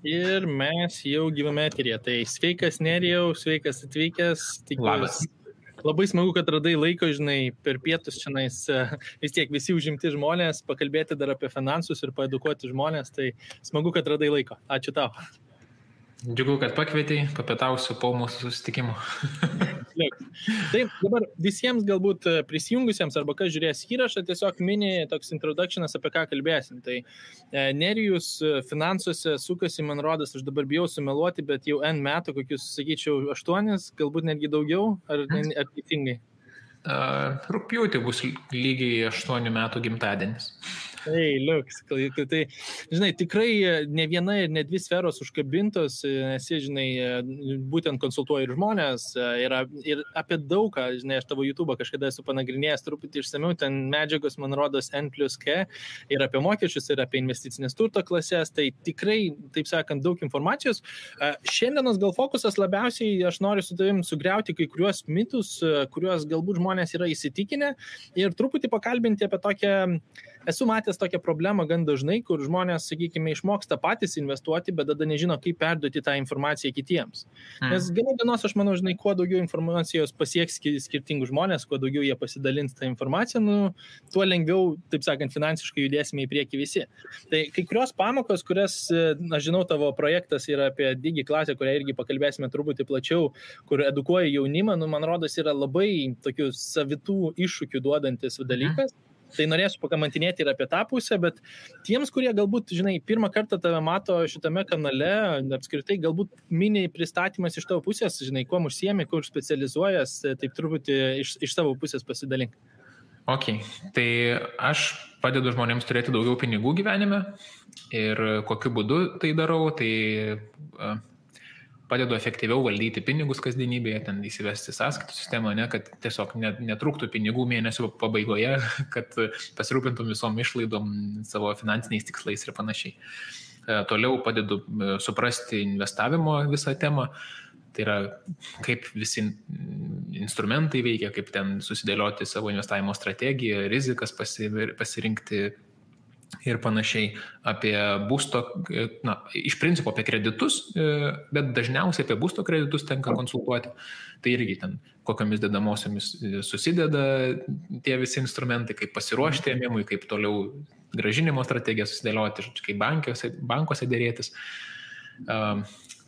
Ir mes jau gyvame eteryje. Tai sveikas Nerijau, sveikas atvykęs. Labas. Labai smagu, kad radai laiko, žinai, per pietus šiandien vis tiek visi užimti žmonės, pakalbėti dar apie finansus ir paedukuoti žmonės. Tai smagu, kad radai laiko. Ačiū tau. Džiugu, kad pakvietei, papietausiu po mūsų susitikimo. Taip, dabar visiems galbūt prisijungusiems arba kas žiūrės įrašą, tiesiog mini toks introductionas, apie ką kalbėsim. Tai Nerijus finansuose sukasi, man rodas, aš dabar bijau sumeluoti, bet jau N metų, kokius, sakyčiau, 8, galbūt netgi daugiau, ar teisingai? Rugpjūtį bus lygiai 8 metų gimtadienis. Tai, liuks, tai, žinai, tikrai ne viena ir ne 2 sferos užkabintos, esi, žinai, būtent konsultuoji ir žmonės, ir apie daugą, žinai, aš tavo YouTube kažkada esu panagrinėjęs truputį išsamiau, ten medžiagos, man rodos, N+K, ir apie mokesčius, ir apie investicinės turto klasės, tai tikrai, taip sakant, daug informacijos. Šiandienos gal fokusas labiausiai, aš noriu su tavim sugriauti kai kuriuos mitus, kuriuos galbūt žmonės yra įsitikinę, ir truputį pakalbinti apie tokią, esu matęs tokią problemą gan dažnai, kur žmonės, sakykime, išmoksta patys investuoti, bet tada nežino, kaip perduoti tą informaciją kitiems. Nes gana dienos, aš manau, žinai, kuo daugiau informacijos pasieks skirtingų žmonės, kuo daugiau jie pasidalins tą informaciją, tuo lengviau, taip sakant, finansiškai judėsime į priekį visi. Tai kai kurios pamokos, kurias, aš žinau, tavo projektas yra apie Digi klasę, kurią irgi pakalbėsime truputį plačiau, kur edukuoja jaunimą, man rodos, yra labai tokių savitų iššūkių duodantis dalykas. Tai norėsiu pakamantinėti ir apie tą pusę, bet tiems, kurie galbūt, žinai, pirmą kartą tave mato šitame kanale, apskritai galbūt mini pristatymas iš tavo pusės, žinai, kuo užsiemi, kur specializuojas, taip truputį iš savo pusės pasidalink. Ok, tai aš padedu žmonėms turėti daugiau pinigų gyvenime ir kokiu būdu tai darau, tai padedu efektyviau valdyti pinigus kasdienybėje, ten įsivesti sąskaitų sistemą, kad tiesiog netrūktų pinigų mėnesio pabaigoje, kad pasirūpintum visom išlaidom, savo finansiniais tikslais ir panašiai. Toliau padedu suprasti investavimo visą temą, tai yra kaip visi instrumentai veikia, kaip ten susidėlioti savo investavimo strategiją, rizikas pasirinkti ir panašiai, apie būsto, iš principo apie kreditus, bet dažniausiai apie būsto kreditus tenka konsultuoti. Tai irgi ten kokiamis dedamosiomis susideda tie visi instrumentai, kaip pasiruošti ėmimui, kaip toliau grąžinimo strategiją susidėlioti, kaip bankuose dėrėtis.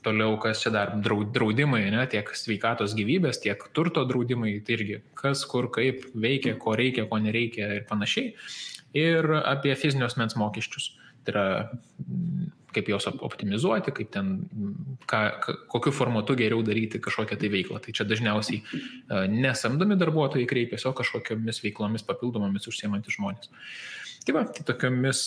Toliau, kas čia dar, draudimai, tiek sveikatos gyvybės, tiek turto draudimai, tai irgi kas, kur, kaip veikia, ko reikia, ko nereikia ir panašiai. Ir apie fizinio asmens mokesčius. Tai yra, kaip juos optimizuoti, kaip ten, kokiu formatu geriau daryti kažkokią tai veiklą. Tai čia dažniausiai nesamdomi darbuotojai kreipiasi, o kažkokiamis veiklomis papildomomis užsiemantys žmonės. Tai tokiomis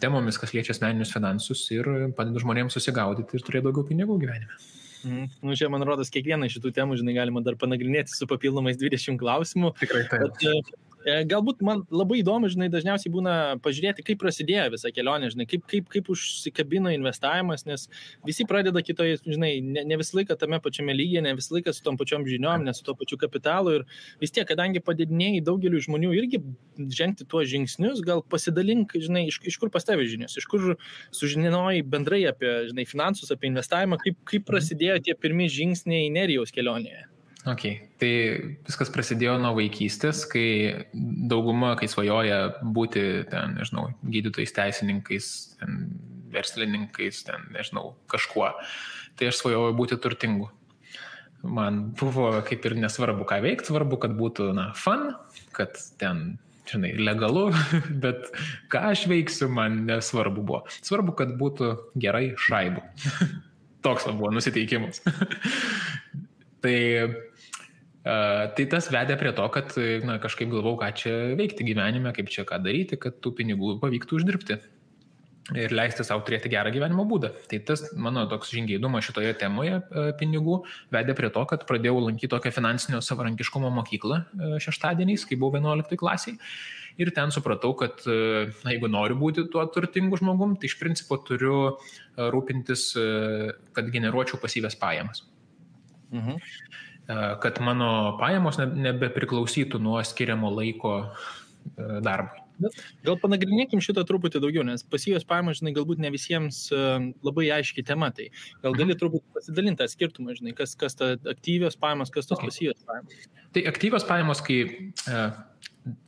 temomis, kas liečia asmeninius finansus ir padeda žmonėms susigaudyti ir turėti daugiau pinigų gyvenime. Čia, man rodos, kiekvieną iš šitų temų, žinai, galima dar panagrinėti su papildomais 20 klausimų. Tikrai taip. Galbūt man labai įdomu, žinai, dažniausiai būna pažiūrėti, kaip prasidėjo visa kelionė, žinai, kaip užsikabino investavimas, nes visi pradeda kitoje, žinai, ne visą laiką tame pačiame lygyje, ne visą laiką su tom pačiom žiniom, ne su to pačiu kapitalu ir vis tiek, kadangi padidinėjai daugeliu žmonių irgi žengti tuos žingsnius, gal pasidalink, žinai, iš kur pas tavę žinios, iš kur sužinojai bendrai apie, žinai, finansus, apie investavimą, kaip prasidėjo tie pirmi žingsniai Nerijaus kelionėje. Ok, tai viskas prasidėjo nuo vaikystės, kai dauguma, kai svajoja būti ten, nežinau, gydytojais, teisininkais, ten, verslininkais, ten, nežinau, kažkuo, tai aš svajojau būti turtingu. Man buvo kaip ir nesvarbu, ką veikti, svarbu, kad būtų, fun, kad ten, žinai, legalu, bet ką aš veiksiu, man nesvarbu buvo. Svarbu, kad būtų gerai šaibų. Toks buvo nusiteikimas. Tai tas vedė prie to, kad kažkaip galvau, ką čia veikti gyvenime, kaip čia ką daryti, kad tų pinigų pavyktų uždirbti ir leisti savo turėti gerą gyvenimo būdą. Tai tas mano toks žingeidumas šitoje temoje pinigų vedė prie to, kad pradėjau lankyti tokią finansinio savarankiškumo mokyklą šeštadieniais, kai buvau 11 klasiai. Ir ten supratau, kad jeigu noriu būti tuo turtingu žmogum, tai iš principo turiu rūpintis, kad generuočiau pasyvias pajamas. Kad mano pajamos nebepriklausytų nuo skiriamo laiko darbui. Gal panagrinėkim šitą truputį daugiau, nes pasyvios pajamos, žinai, galbūt ne visiems labai aiški tema, tai gal gali truputį pasidalinti tą skirtumą, žinai, kas ta aktyvios pajamos, kas tos pasyvios pajamos. Tai aktyvios pajamos, kai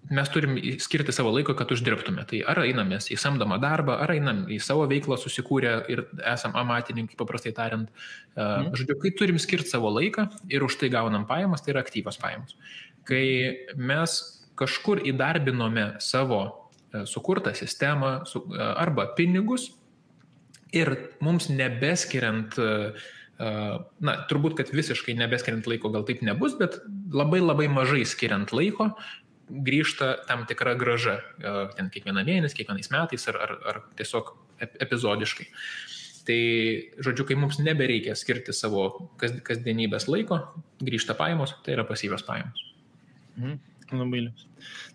mes turim skirti savo laiko, kad uždirbtume. Tai ar einam mes į samdomą darbą, ar einam į savo veiklą susikūrę ir esam amatininkai, paprastai tariant. Žodžiu, kai turim skirti savo laiką ir už tai gaunam pajamas, tai yra aktyvios pajamos. Kai mes kažkur įdarbinome savo sukurtą sistemą arba pinigus ir mums nebeskiriant, turbūt, kad visiškai nebeskiriant laiko gal taip nebus, bet labai labai mažai skiriant laiko, grįžta tam tikra grąža, ten kiekvieną mėnesį, kiekvienais metais ar tiesiog epizodiškai. Tai, žodžiu, kai mums nebereikia skirti savo kasdienybės laiko, grįžta pajamos, tai yra pasyvios pajamos. Labai liūs.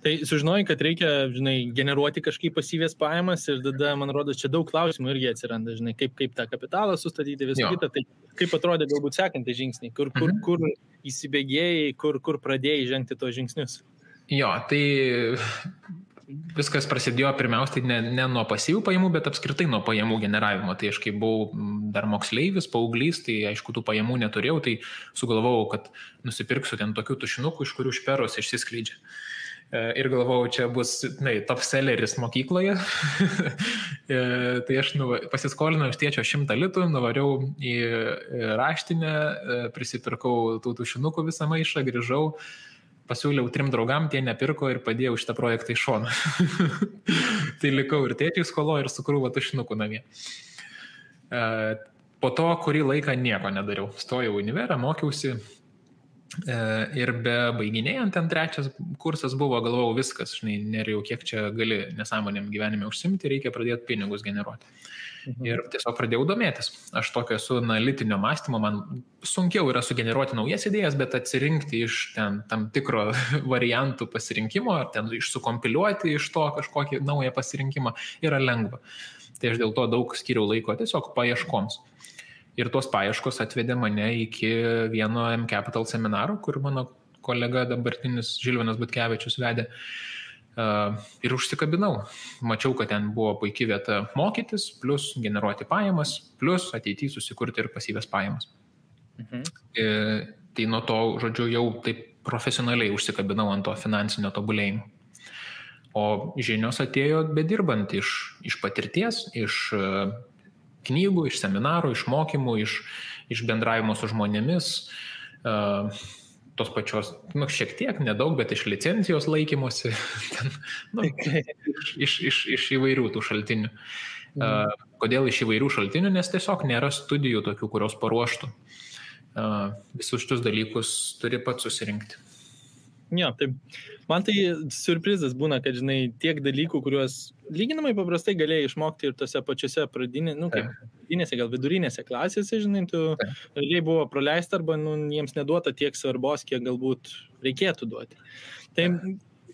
Tai sužinojai, kad reikia, žinai, generuoti kažkaip pasyvės pajamas ir tada, man rodo, čia daug klausimų irgi atsiranda, žinai, kaip tą kapitalą sustatyti, visą kitą, tai kaip atrodė galbūt sekantį žingsnį, kur įsibėgėjai, kur pradėjai žengti tos žingsnius. Jo, tai viskas prasidėjo pirmiausiai ne nuo pasyvių pajamų, bet apskritai nuo pajamų generavimo. Tai aš kai buvau dar moksleivis, paauglys, tai aišku, tų pajamų neturėjau, tai sugalvojau, kad nusipirksiu ten tokių tušinukų, iš kurių šperos išsiskleidžia. Ir galvojau, čia bus, top selleris mokykloje. Tai aš pasiskolinau iš tėčio 100 litų, nuvariau į raštinę, prisipirkau tų tušinukų visą maišą, grįžau. Pasiūliau 3 draugam, tie nepirko ir padėjau šitą projektą į šoną. Tai likau ir tėčiai skolo ir su krūva tušinukų namie. Po to kurį laiką nieko nedariau. Stojau į univerą, mokiausi ir be baiginėjant ten 3 kursas buvo, galvojau viskas, žinai, nerijau, kiek čia gali nesąmonėm gyvenime užsimti, reikia pradėti pinigus generuoti. Ir tiesiog pradėjau domėtis. Aš tokio esu analitinio mąstymo, man sunkiau yra sugeneruoti naujas idėjas, bet atsirinkti iš ten tam tikro variantų pasirinkimo, ar ten išsukompiliuoti iš to kažkokį naują pasirinkimą yra lengva. Tai aš dėl to daug skiriau laiko tiesiog paieškoms. Ir tos paieškos atvedė mane iki vieno M-Capital seminaro, kur mano kolega dabartinis Žilvinas Butkevičius vedė. Ir užsikabinau. Mačiau, kad ten buvo puikia vieta mokytis, plus generuoti pajamas, plus ateityje susikurti ir pasyvias pajamas. Tai nuo to, žodžiu, jau taip profesionaliai užsikabinau ant to finansinio tobulėjimo. O žinios atėjo bedirbant iš patirties, iš knygų, iš seminarų, iš mokymų, iš bendravimo su žmonėmis, tos pačios, šiek tiek, nedaug, bet iš licencijos laikymosi, iš įvairių tų šaltinių. Kodėl iš įvairių šaltinių? Nes tiesiog nėra studijų tokių, kurios paruoštų. Visus šitus dalykus turi pats susirinkti. Jo, taip. Man tai surprizas būna, kad, žinai, tiek dalykų, kuriuos lyginamai paprastai galėjai išmokti ir tose pačiose pradinėse, gal vidurinėse klasėse, žinai, tu realiai buvo praleista arba jiems neduota tiek svarbos, kiek galbūt reikėtų duoti. Tai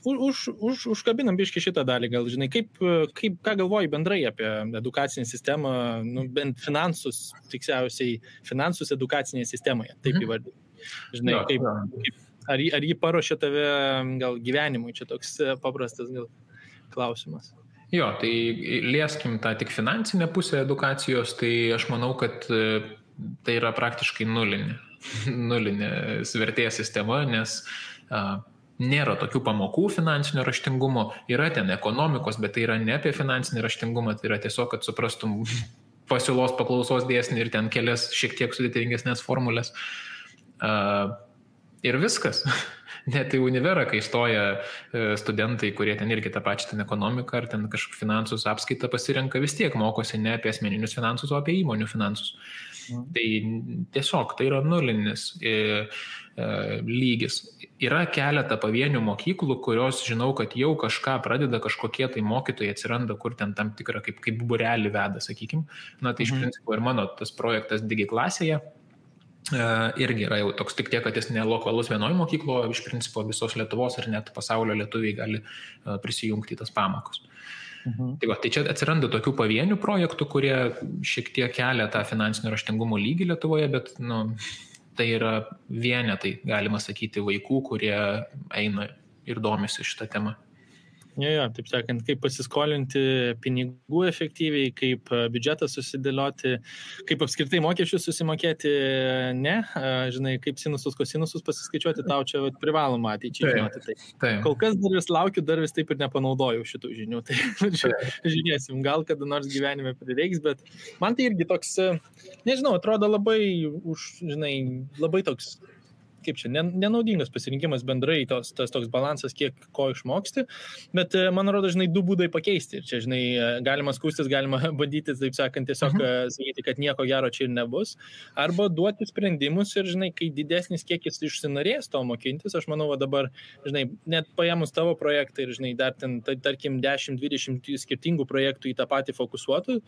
užkabinam biškį šitą dalį, gal, žinai, ką galvoji bendrai apie edukacinę sistemą, bent finansus, tiksliausiai finansus edukacinėje sistemoje, taip įvardinti. Žinai, Ar jį paruošė tave gal gyvenimui? Čia toks paprastas gal klausimas. Jo, tai lieskim tą tik finansinę pusę edukacijos, tai aš manau, kad tai yra praktiškai nulinė vertės sistema, nes nėra tokių pamokų finansinio raštingumo, yra ten ekonomikos, bet tai yra ne apie finansinį raštingumą, tai yra tiesiog, kad suprastum pasiūlos paklausos dėsnį ir ten kelias šiek tiek sudėtingesnės formulės. Ir viskas. Net į univerą, kai stoja studentai, kurie ten irgi tą pačią ten ekonomiką ar ten kažkokį finansus apskaitą pasirenka, vis tiek mokosi ne apie asmeninius finansus, o apie įmonių finansus. Tai tiesiog tai yra nulinis lygis. Yra keletą pavienių mokyklų, kurios žinau, kad jau kažką pradeda, kažkokie tai mokytojai atsiranda, kur ten tam tikrą kaip būrelį veda, sakykim. Tai iš principo ir mano tas projektas Digiklasėje irgi yra jau toks tik tiek, kad jis ne lokalus vienoj mokyklo, iš principo visos Lietuvos ir net pasaulio lietuviai gali prisijungti į tas pamokas. Tai čia atsiranda tokių pavienių projektų, kurie šiek tiek kelia tą finansinio raštingumo lygį Lietuvoje, bet tai yra vienetai, galima sakyti, vaikų, kurie eina ir domisi šitą temą. Jo, taip sakant, kaip pasiskolinti pinigų efektyviai, kaip biudžetą susidėlioti, kaip apskritai mokesčius susimokėti, ne, žinai, kaip sinusus, kosinusus pasiskaičiuoti, tau čia privaloma ateičiai žinoti. Tai kol kas dar vis laukiu, dar vis taip ir nepanaudojau šitų žinių, tai žiūrėsim, gal kada nors gyvenime prireiks, bet man tai irgi toks, nežinau, atrodo labai, žinai, labai toks, kaip čia, nenaudingas pasirinkimas bendrai, tas toks balansas, kiek ko išmoksti, bet man rodo, žinai, du būdai pakeisti. Ir čia, žinai, galima skūstis, galima bandyti, taip sakant, tiesiog sakyti, kad nieko gero čia ir nebus, arba duoti sprendimus ir, žinai, kai didesnis kiekis išsinorės to mokintis, aš manau, dabar, žinai, net paėmus tavo projektą ir, žinai, dar ten, tarkim, 10-20 skirtingų projektų į tą patį fokusuotų,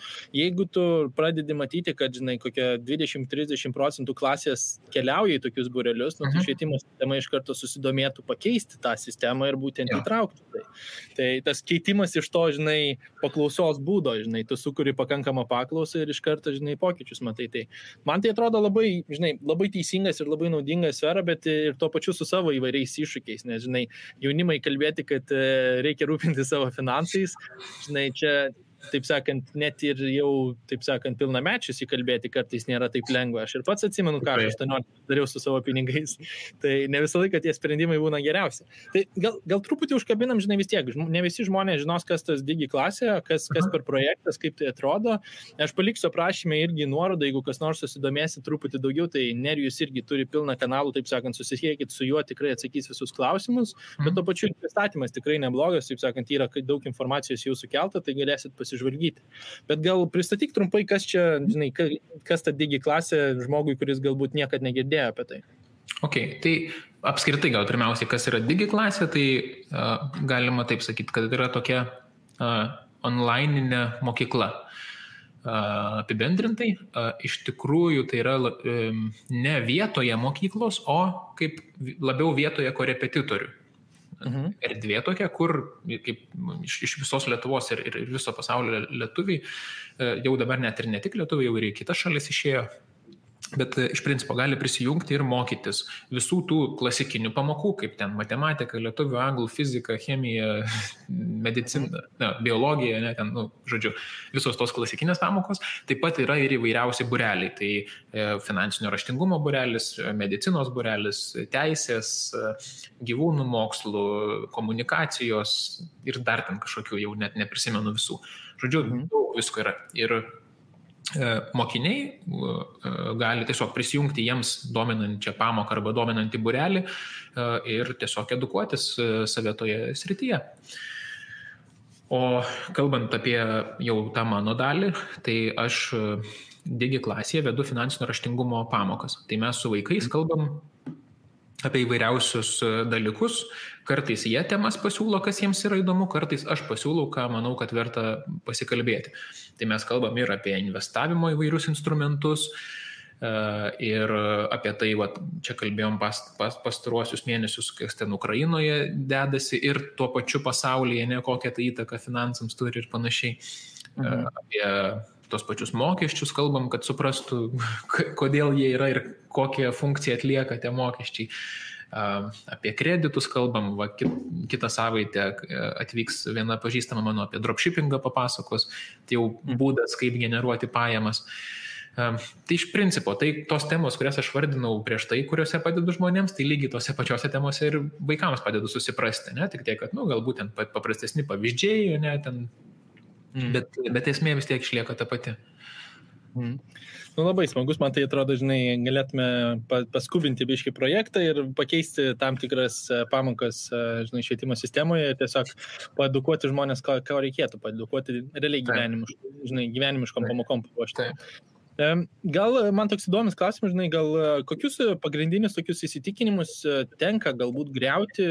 jeigu tu pradedi matyti, kad, žinai, kokia 20-30% klasės keliauja į tokius būrelius, tai švietimo sistema iš karto susidomėtų pakeisti tą sistemą ir būtent įtraukti. Tai tas keitimas iš to, žinai, paklausos būdo, žinai, tu sukuri pakankamą paklausą ir iš karto, žinai, pokyčius matai. Tai man tai atrodo labai, žinai, labai teisingas ir labai naudinga sfera, bet ir tuo pačiu su savo įvairiais iššūkiais, nes, žinai, jaunimai kalbėti, kad reikia rūpinti savo finansais, žinai, čia taip sakant, net ir jau, taip sakant, pilnamečius įkalbėti kartais nėra taip lengva. Aš ir pats atsimenu, ką aš 18 dariau su savo pinigais. Tai ne visą laiką tie sprendimai būna geriausi. Tai gal truputį užkabinam, žinai, vis tiek. Ne visi žmonės žinos, kas tas Digi klasė, kas per projektas, kaip tai atrodo. Aš paliksiu aprašymę irgi nuorodą, jeigu kas nors susidomėsi truputį daugiau, tai Nerijus irgi turi pilną kanalų, taip sakant, susisiekit su juo, tikrai atsakys visus klausimus, bet to pačiu pristatymas tikrai neblogas, taip sakant, yra daug informacijos jau sukelta, tai galėsit pasižvalgyti. Bet gal pristatyk trumpai, kas čia, žinai, kas ta Digi klasė žmogui, kuris galbūt niekad negirdėjo apie tai. Ok, tai apskritai gal pirmiausiai, kas yra Digi klasė, tai galima taip sakyti, kad yra tokia online'inė mokykla. Apibendrintai, iš tikrųjų tai yra ne vietoje mokyklos, o kaip labiau vietoje korepetitorių. Erdvė tokia, kur kaip iš visos Lietuvos ir viso pasaulio lietuviai, jau dabar net ir ne tik lietuviai, jau ir į kitas šalis išėjo, bet iš principo gali prisijungti ir mokytis visų tų klasikinių pamokų, kaip ten matematika, lietuvių, anglų, fizika, chemija, medicina, biologija, ne, ten, žodžiu, visos tos klasikinės pamokos. Taip pat yra ir įvairiausi būreliai, tai finansinio raštingumo būrelis, medicinos būrelis, teisės, gyvūnų mokslų, komunikacijos ir dar ten kažkokių, jau net neprisimenu visų. Žodžiu, daug visko yra. Ir mokiniai gali tiesiog prisijungti jiems dominančią pamoką arba dominantį būrelį ir tiesiog edukuotis save toje srityje. O kalbant apie jau tą mano dalį, tai aš Digi klasėje vedu finansinio raštingumo pamokas. Tai mes su vaikais kalbam apie įvairiausius dalykus, kartais jie temas pasiūlo, kas jiems yra įdomu, kartais aš pasiūlau, ką manau, kad verta pasikalbėti. Tai mes kalbam ir apie investavimo įvairius instrumentus, ir apie tai, čia kalbėjom pastaruosius mėnesius, kas ten Ukrainoje dedasi ir tuo pačiu pasaulyje, ne kokią tai įtaką finansams turi ir panašiai. Apie tos pačius mokesčius kalbam, kad suprastų, kodėl jie yra ir kokią funkciją atlieka tie mokesčiai. Apie kreditus kalbam, kitą savaitę atvyks viena pažįstama mano apie dropshippingą papasakos, tai jau būdas, kaip generuoti pajamas. Tai iš principo, tai tos temos, kurias aš vardinau prieš tai, kuriuose padedu žmonėms, tai lygiai tose pačiose temose ir vaikams padedu susiprasti, ne? Tik tiek, kad, galbūt ten paprastesni pavyzdžiai, ne, ten, bet esmė vis tiek išlieka ta pati. Labai smagus, man tai atrodo, žinai, galėtume paskubinti biškį projektą ir pakeisti tam tikras pamokas, žinai, švietimo sistemoje ir tiesiog paedukuoti žmonės, ko reikėtų, paedukuoti realiai gyvenimiškom pamokom paruošti. Gal man toks įdomus klausimas, žinai, gal kokius pagrindinius tokius įsitikinimus tenka galbūt griauti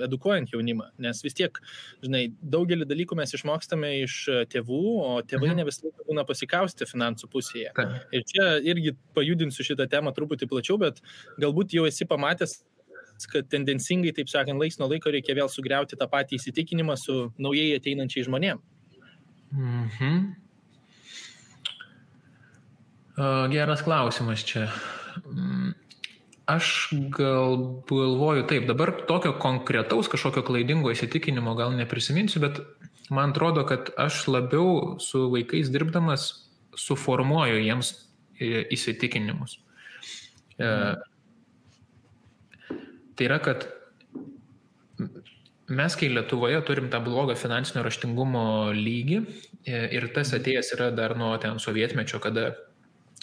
edukuojant jaunimą, nes vis tiek, žinai, daugelį dalykų mes išmokstame iš tėvų, o tėvai ne visą laiką būna pasikausti finansų pusėje. Ir čia irgi pajudinsiu šitą temą truputį plačiau, bet galbūt jau esi pamatęs, kad tendencingai, taip sakant, laiks nuo laiko reikia vėl sugriauti tą patį įsitikinimą su naujai ateinančiai žmonėm. Geras klausimas čia. Aš galvoju taip, dabar tokio konkretaus kažkokio klaidingo įsitikinimo gal neprisiminsiu, bet man atrodo, kad aš labiau su vaikais dirbdamas suformuoju jiems įsitikinimus. Tai yra, kad mes, kai Lietuvoje turim tą blogą finansinio raštingumo lygį ir tas atėjęs yra dar nuo ten sovietmečio, kada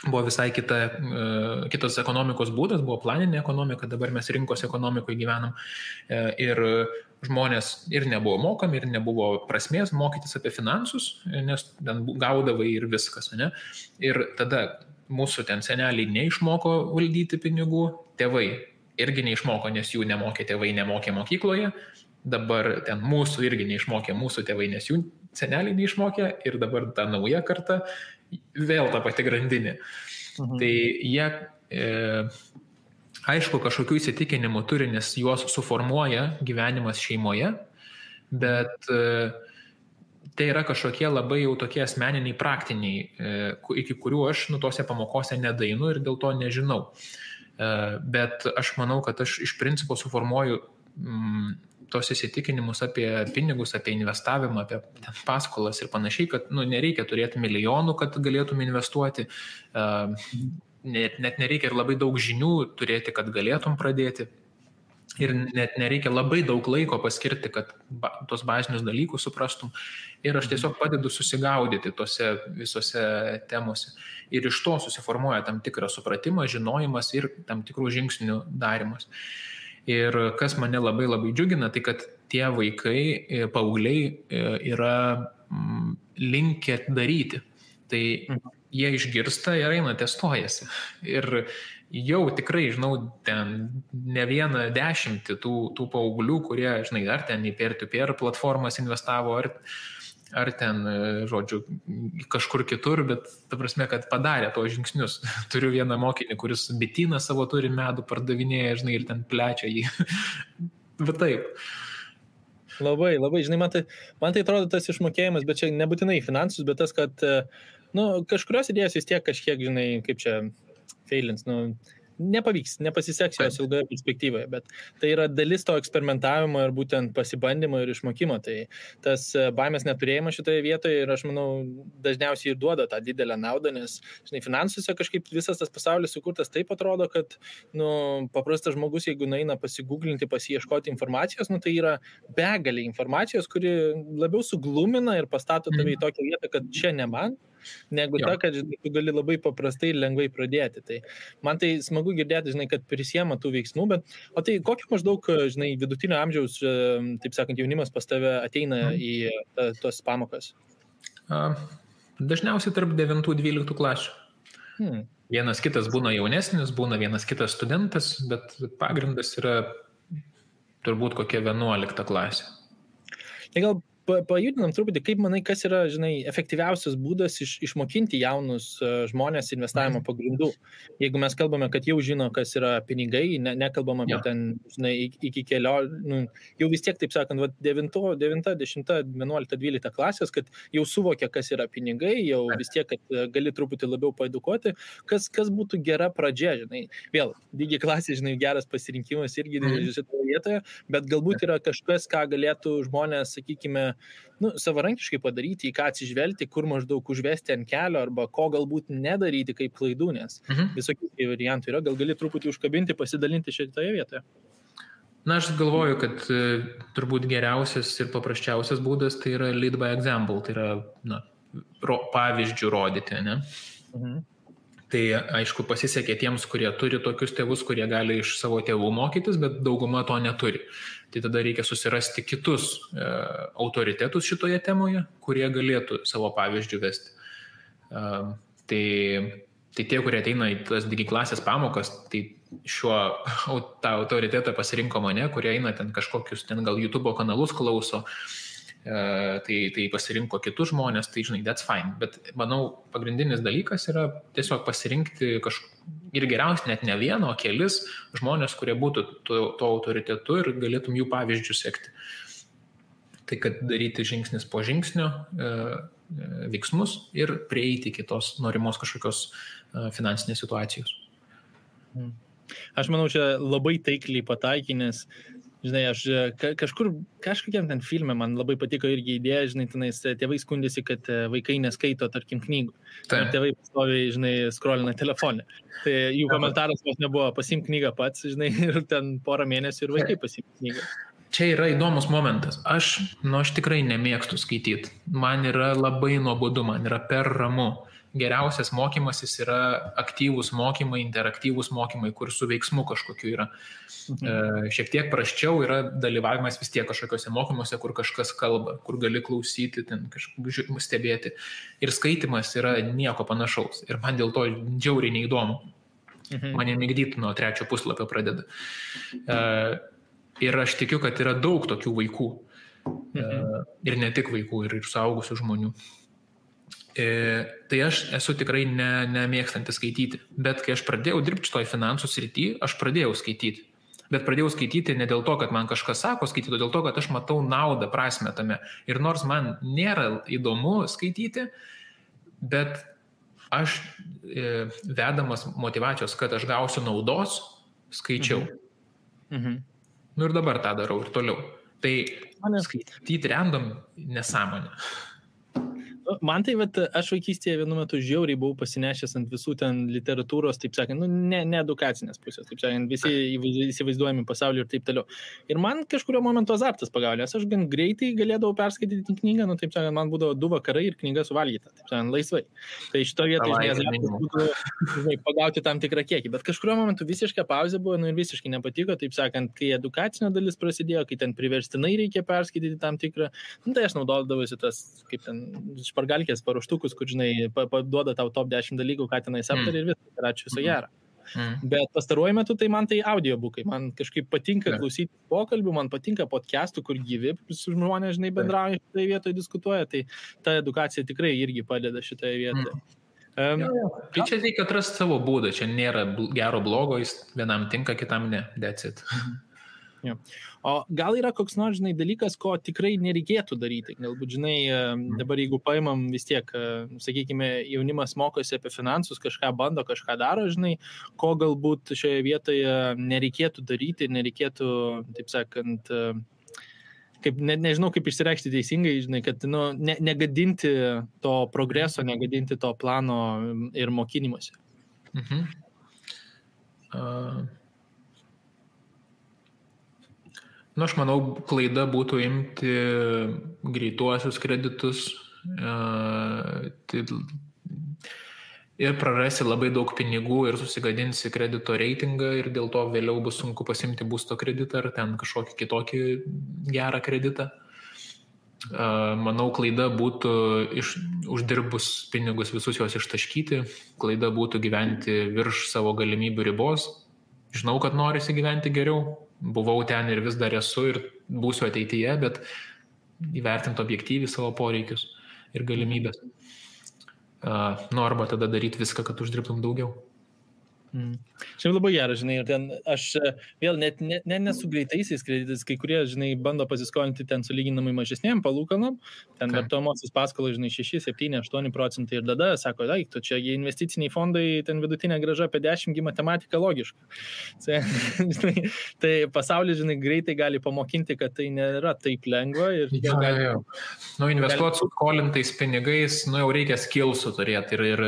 buvo visai kitas ekonomikos būdas, buvo planinė ekonomika, dabar mes rinkos ekonomikoje gyvenam ir žmonės ir nebuvo mokami, ir nebuvo prasmės mokytis apie finansus, nes ten gaudavai ir viskas, ne? Ir tada mūsų ten seneliai neišmoko valdyti pinigų, tėvai irgi neišmoko, nes jų nemokė tėvai, nemokė mokykloje, dabar ten mūsų irgi neišmokė mūsų tėvai, nes jų seneliai neišmokė ir dabar ta nauja karta vėl ta pati grandinė. Tai jie, aišku, kažkokių įsitikinimų turi, nes juos suformuoja gyvenimas šeimoje, bet tai yra kažkokie labai jau tokie asmeniniai, praktiniai, iki kurių aš tose pamokose nedainu ir dėl to nežinau. Bet aš manau, kad aš iš principo suformuoju tos įsitikinimus apie pinigus, apie investavimą, apie paskolas ir panašiai, kad nereikia turėti milijonų, kad galėtum investuoti, net nereikia ir labai daug žinių turėti, kad galėtum pradėti. Ir net nereikia labai daug laiko paskirti, kad tos bazinius dalykus suprastum. Ir aš tiesiog padedu susigaudyti tose visose temose. Ir iš to susiformuoja tam tikras supratimas, žinojimas ir tam tikrų žingsnių darimas. Ir kas mane labai labai džiugina, tai kad tie vaikai, paaugliai yra linkę daryti. Tai jie išgirsta ir eina testuojasi. Ir jau tikrai, žinau, ten ne vieną 10 tų paauglių, kurie, žinai, ar ten į peer-to-peer platformas investavo, ar ten, žodžiu, kažkur kitur, bet ta prasme, kad padarė tos žingsnius. Turiu vieną mokinį, kuris bityną savo turi, medų pardavinėja, žinai, ir ten plečia jį. Bet taip. Labai, žinai, man tai atrodo tas išmokėjimas, bet čia nebūtinai finansus, bet tas, kad kažkurios idėjos vis tiek kažkiek, žinai, kaip čia failins, nepavyks, nepasiseks jos ilgoje perspektyvoje, bet tai yra dalis to eksperimentavimo ir būtent pasibandymo ir išmokymo. Tai tas baimės neturėjimas šitoje vietoje ir aš manau dažniausiai ir duoda tą didelę naudą, nes, žinai, finansuose kažkaip visas tas pasaulis sukurtas taip atrodo, kad paprastas žmogus, jeigu nueina pasigūglinti, pasiieškoti informacijos, tai yra begalė informacijos, kuri labiau suglumina ir pastato tave į tokią vietą, kad čia ne man, negu ta, kad tu gali labai paprastai ir lengvai pradėti. Tai man tai smagu girdėti, žinai, kad prisiema tų veiksmų, bet o tai kokio maždaug, žinai, vidutinio amžiaus, taip sakant, jaunimas pas tave ateina į tos pamokas? Dažniausiai tarp 9-12 klasių. Vienas kitas būna jaunesnis, būna vienas kitas studentas, bet pagrindas yra turbūt kokia 11 klasė. Tai gal pajudinam truputį, kaip manai, kas yra, žinai, efektyviausias būdas išmokinti jaunus žmonės investavimo pagrindų. Jeigu mes kalbame, kad jau žino, kas yra pinigai, nekalbam apie ten, žinai, iki kelio, jau vis tiek, taip sakant, 9, 10, 11, 12 klasės, kad jau suvokia, kas yra pinigai, jau vis tiek, kad gali truputį labiau paedukuoti, kas būtų gera pradžia, žinai. Vėl, digi klasė, žinai, geras pasirinkimas irgi šitoje vietoje, bet galbūt yra kažkas, ką galėtų žmonės, sakykime, savarankiškai padaryti, į ką atsižvelgti, kur maždaug užvesti ant kelio, arba ko galbūt nedaryti kaip klaidų, nes visokių variantų yra, gal gali truputį užkabinti, pasidalinti šitoje vietoje. Na, aš galvoju, kad turbūt geriausias ir paprasčiausias būdas tai yra lead by example, tai yra pavyzdžių rodyti, ne? Tai aišku pasisekė tiems, kurie turi tokius tėvus, kurie gali iš savo tėvų mokytis, bet dauguma to neturi. Tai tada reikia susirasti kitus autoritetus šitoje temoje, kurie galėtų savo pavyzdžių vesti. Tai tie, kurie ateina į tas digi klasės pamokas, tai tą autoritetą pasirinko mane, kurie eina ten kažkokius, ten gal YouTube kanalus klauso, tai pasirinko kitus žmonės, tai žinai, that's fine. Bet manau, pagrindinis dalykas yra tiesiog pasirinkti ir geriausiai net ne vieną, o kelis žmonės, kurie būtų to autoritetu ir galėtum jų pavyzdžių sekti. Tai kad daryti žingsnis po žingsnio veiksmus ir prieiti iki tos norimos kažkokios finansinės situacijos. Aš manau, čia labai taikliai pataikė, nes, žinai, aš kažkokiam ten filme man labai patiko irgi idėja, žinai, tenais tėvai skundėsi, kad vaikai neskaito, tarkim, knygų. Ir tėvai pastoviai, žinai, scrollina telefonę. Tai jų komentaras vos nebuvo, pasimk knygą pats, žinai, ir ten porą mėnesių ir vaikai pasimk knygą. Čia yra įdomus momentas. Aš tikrai nemėgstu skaityti. Man yra labai nuobodu, man yra per ramu. Geriausias mokymasis yra aktyvūs mokymai, interaktyvūs mokymai, kur su veiksmu kažkokiu yra. Šiek tiek prasčiau yra dalyvavimas vis tiek kažkokiuose mokymuose, kur kažkas kalba, kur gali klausyti, ten kažkaip stebėti. Ir skaitimas yra nieko panašaus. Ir man dėl to džiauriai neįdomu. Mane migdyti nuo 3 puslapio pradeda. Ir aš tikiu, kad yra daug tokių vaikų. Ir ne tik vaikų, ir suaugusių žmonių. Tai aš esu tikrai nemėgstantis skaityti. Bet kai aš pradėjau dirbti šitoj finansų srity, aš pradėjau skaityti. Bet pradėjau skaityti ne dėl to, kad man kažkas sako skaityti, o dėl to, kad aš matau naudą, prasmę tame. Ir nors man nėra įdomu skaityti, bet aš vedamas motyvacijos, kad aš gausiu naudos, skaičiau. Nu ir dabar tą darau ir toliau. Tai skaityti random nesąmonė. Man tai, aš vaikystėje vienu metu žiauriai buvau pasinešęs ant visų ten literatūros, taip sakant, ne edukacinės pusės, taip sakant, visi įsivaizduojami pasaulį ir taip toliau. Ir man kažkurio momentu azartas pagaulė, nes aš gan greitai galėdavau perskaityti knygą, taip sakant, man būdavo 2 vakarai ir knyga suvalgyta, taip sakant, laisvai. Tai šito vietoje, azartas būtų pagauti tam tikrą kiekį, bet kažkurio momentu visiškai pauzė buvo, ir visiškai nepatiko, taip sakant, kai edukacinė dalis prasidėjo, kai ten priverstinai reikia perskaityti tam tikrą, tai aš naudodavausi tas, kaip ten, špargalkės paruoštukus, kur, žinai, duoda tau top 10 dalykų, ką tenais aptarė ir viskas, ir ačiū viso gero. Bet pastaruoju metu tai man tai audiobukai, man kažkaip patinka klausyti pokalbių, man patinka podcastų, kur gyvi su žmonės, žinai, bendrauja šitoje vietoje, diskutuoja, tai ta edukacija tikrai irgi padeda šitoje vietoje. Tai čia reikia atrasti savo būdą, čia nėra gero blogo, jis vienam tinka, kitam ne, that's it. O gal yra koks nors, žinai, dalykas, ko tikrai nereikėtų daryti? Galbūt, žinai, dabar jeigu paimam vis tiek, sakykime, jaunimas mokosi apie finansus, kažką bando, kažką daro, žinai, ko galbūt šioje vietoje nereikėtų daryti, nereikėtų, taip sakant, kaip, nežinau, kaip išsireikšti teisingai, žinai, kad negadinti to progreso, negadinti to plano ir mokynimuose. Aš manau, klaida būtų imti greituosius kreditus ir prarasi labai daug pinigų ir susigadinsi kredito reitingą ir dėl to vėliau bus sunku pasimti būsto kreditą ar ten kažkokį kitokį gerą kreditą. Manau, klaida būtų uždirbus pinigus visus juos ištaškyti, klaida būtų gyventi virš savo galimybių ribos. Žinau, kad norisi gyventi geriau. Buvau ten ir vis dar esu ir būsiu ateityje, bet įvertinti objektyviai savo poreikius ir galimybės. Arba tada daryti viską, kad uždirbtum daugiau. Šiaip labai geras, žinai, ir ten aš vėl net nesu greitaisiais kreditais, kai kurie, žinai, bando pasiskolinti ten sulyginamai mažesnėm palūkanom, ten vartojamosios paskolos, žinai, 6, 7, 8% ir tada sako, tu čia investiciniai fondai, ten vidutinė grąža apie 10, matematika logiška. Tai pasaulis, žinai, greitai gali pamokinti, kad tai nėra taip lengva. Ir investuoti su skolintais pinigais, jau reikia skillsų turėti ir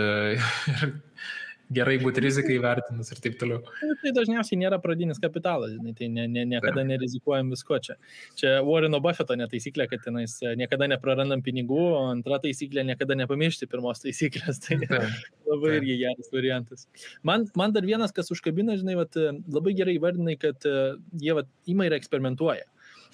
gerai būti rizikai vertinus ir taip toliau. Tai dažniausiai nėra pradinis kapitalas, žinai, tai niekada nerizikuojam visko čia. Čia Warreno Buffetto netaisyklė, kad tenais niekada neprarandam pinigų, o antra taisyklė niekada nepamiršti pirmos taisyklės. Tai labai irgi geras variantas. Man dar vienas, kas užkabina, žinai, labai gerai įvardinai, kad jie ima ir eksperimentuoja.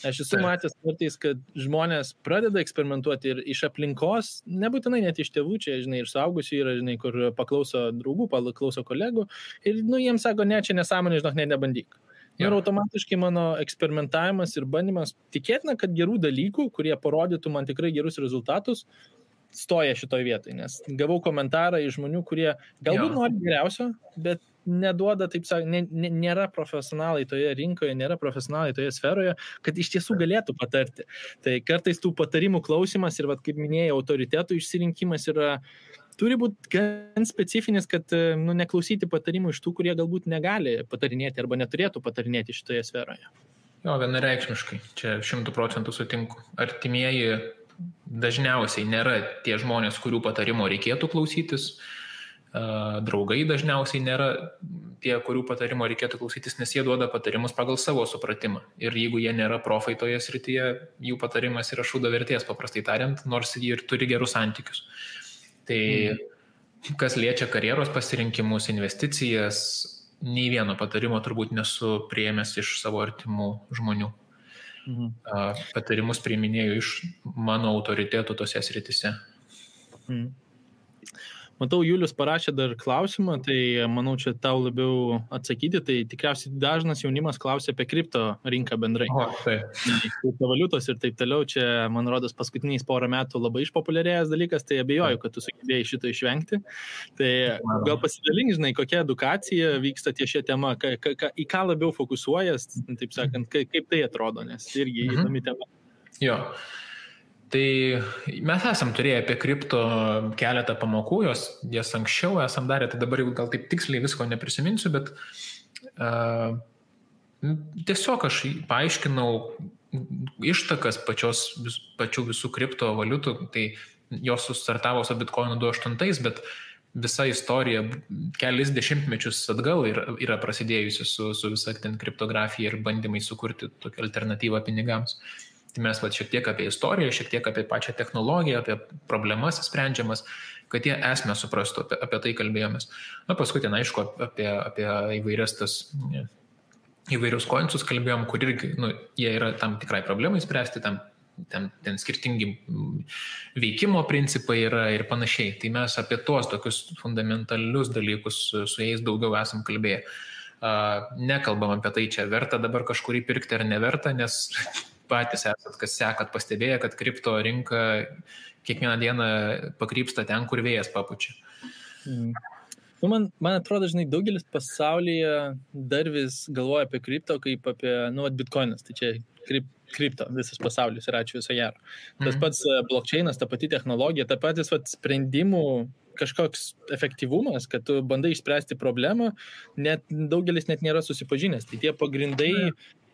Aš esu matęs kartais, kad žmonės pradeda eksperimentuoti ir iš aplinkos, nebūtinai net iš tėvų, čia, žinai, ir suaugusių yra, žinai, kur paklauso draugų, paklauso kolegų ir, jiems sako, ne, čia nesąmonė, žinok, nebandyk. Ir automatiškai mano eksperimentavimas ir bandymas tikėtina, kad gerų dalykų, kurie parodytų man tikrai gerus rezultatus, stoja šitoj vietoj, nes gavau komentarą iš žmonių, kurie galbūt nori geriausio, bet neduoda, taip sakant, nėra profesionalai toje rinkoje, nėra profesionalai toje sferoje, kad iš tiesų galėtų patarti. Tai kartais tų patarimų klausimas ir, kaip minėjau, autoritetų išsirinkimas yra turi būti gan specifinis, kad neklausyti patarimų iš tų, kurie galbūt negali patarinėti arba neturėtų patarinėti šitoje sferoje. Jo, vienareikšmiškai, čia 100% sutinku. Artimieji dažniausiai nėra tie žmonės, kurių patarimo reikėtų klausytis. Draugai dažniausiai nėra tie, kurių patarimo reikėtų klausytis, nes jie duoda patarimus pagal savo supratimą. Ir jeigu jie nėra profai toje srityje, jų patarimas yra šūdo vertės, paprastai tariant, nors jie ir turi gerus santykius. Tai kas liečia karjeros pasirinkimus, investicijas, nei vieno patarimo turbūt nesu priėmęs iš savo artimų žmonių. Patarimus priiminėjau iš mano autoritetų tose srityse. Matau, Julius parašė dar klausimą, tai manau, čia tau labiau atsakyti, tai tikriausiai dažnas jaunimas klausia apie kripto rinką bendrai. Kriptovaliutos ir taip toliau, čia, man rodos, paskutiniais porą metų labai išpopuliarėjęs dalykas, tai abejoju, kad tu sugebėjai šito išvengti. Tai gal pasidalink, žinai, kokia edukacija vyksta ties šią temą, į ką labiau fokusuojas, taip sakant, kaip tai atrodo, nes irgi įdomi tema. Jo. Tai mes esam turėję apie kripto keletą pamokų, jas anksčiau esam darę, tai dabar jau gal taip tiksliai visko neprisiminsiu, bet tiesiog aš paaiškinau ištakas pačių visų kriptovaliutų, tai jos sustartavo su Bitcoinu 2008, bet visa istorija kelis dešimtmečius atgal yra prasidėjusi su visa ten kriptografija ir bandymai sukurti tokią alternatyvą pinigams. Tai mes šiek tiek apie istoriją, šiek tiek apie pačią technologiją, apie problemas sprendžiamas, kad jie esmę suprastų, apie tai kalbėjomės. Na, paskui ten, aišku, apie įvairius koinsus kalbėjom, kur irgi, jie yra tam tikrai problemai spręsti, ten skirtingi veikimo principai yra ir panašiai. Tai mes apie tuos tokius fundamentalius dalykus su jais daugiau esam kalbėję. Nekalbam apie tai, čia verta dabar kažkurį pirkti ar neverta, nes patys esat, kas sekat, pastebėję, kad kripto rinka kiekvieną dieną pakrypsta ten, kur vėjas papučia. Man atrodo, žinai, daugelis pasaulyje dar vis galvoja apie kripto kaip apie, Bitcoinas, tai čia kripto, visas pasaulis ir ačiū viso gero. Tas pats blockchainas, ta pati technologija, ta patys sprendimų kažkoks efektyvumas, kad tu bandai išspręsti problemą, daugelis net nėra susipažinęs. Tai tie pagrindai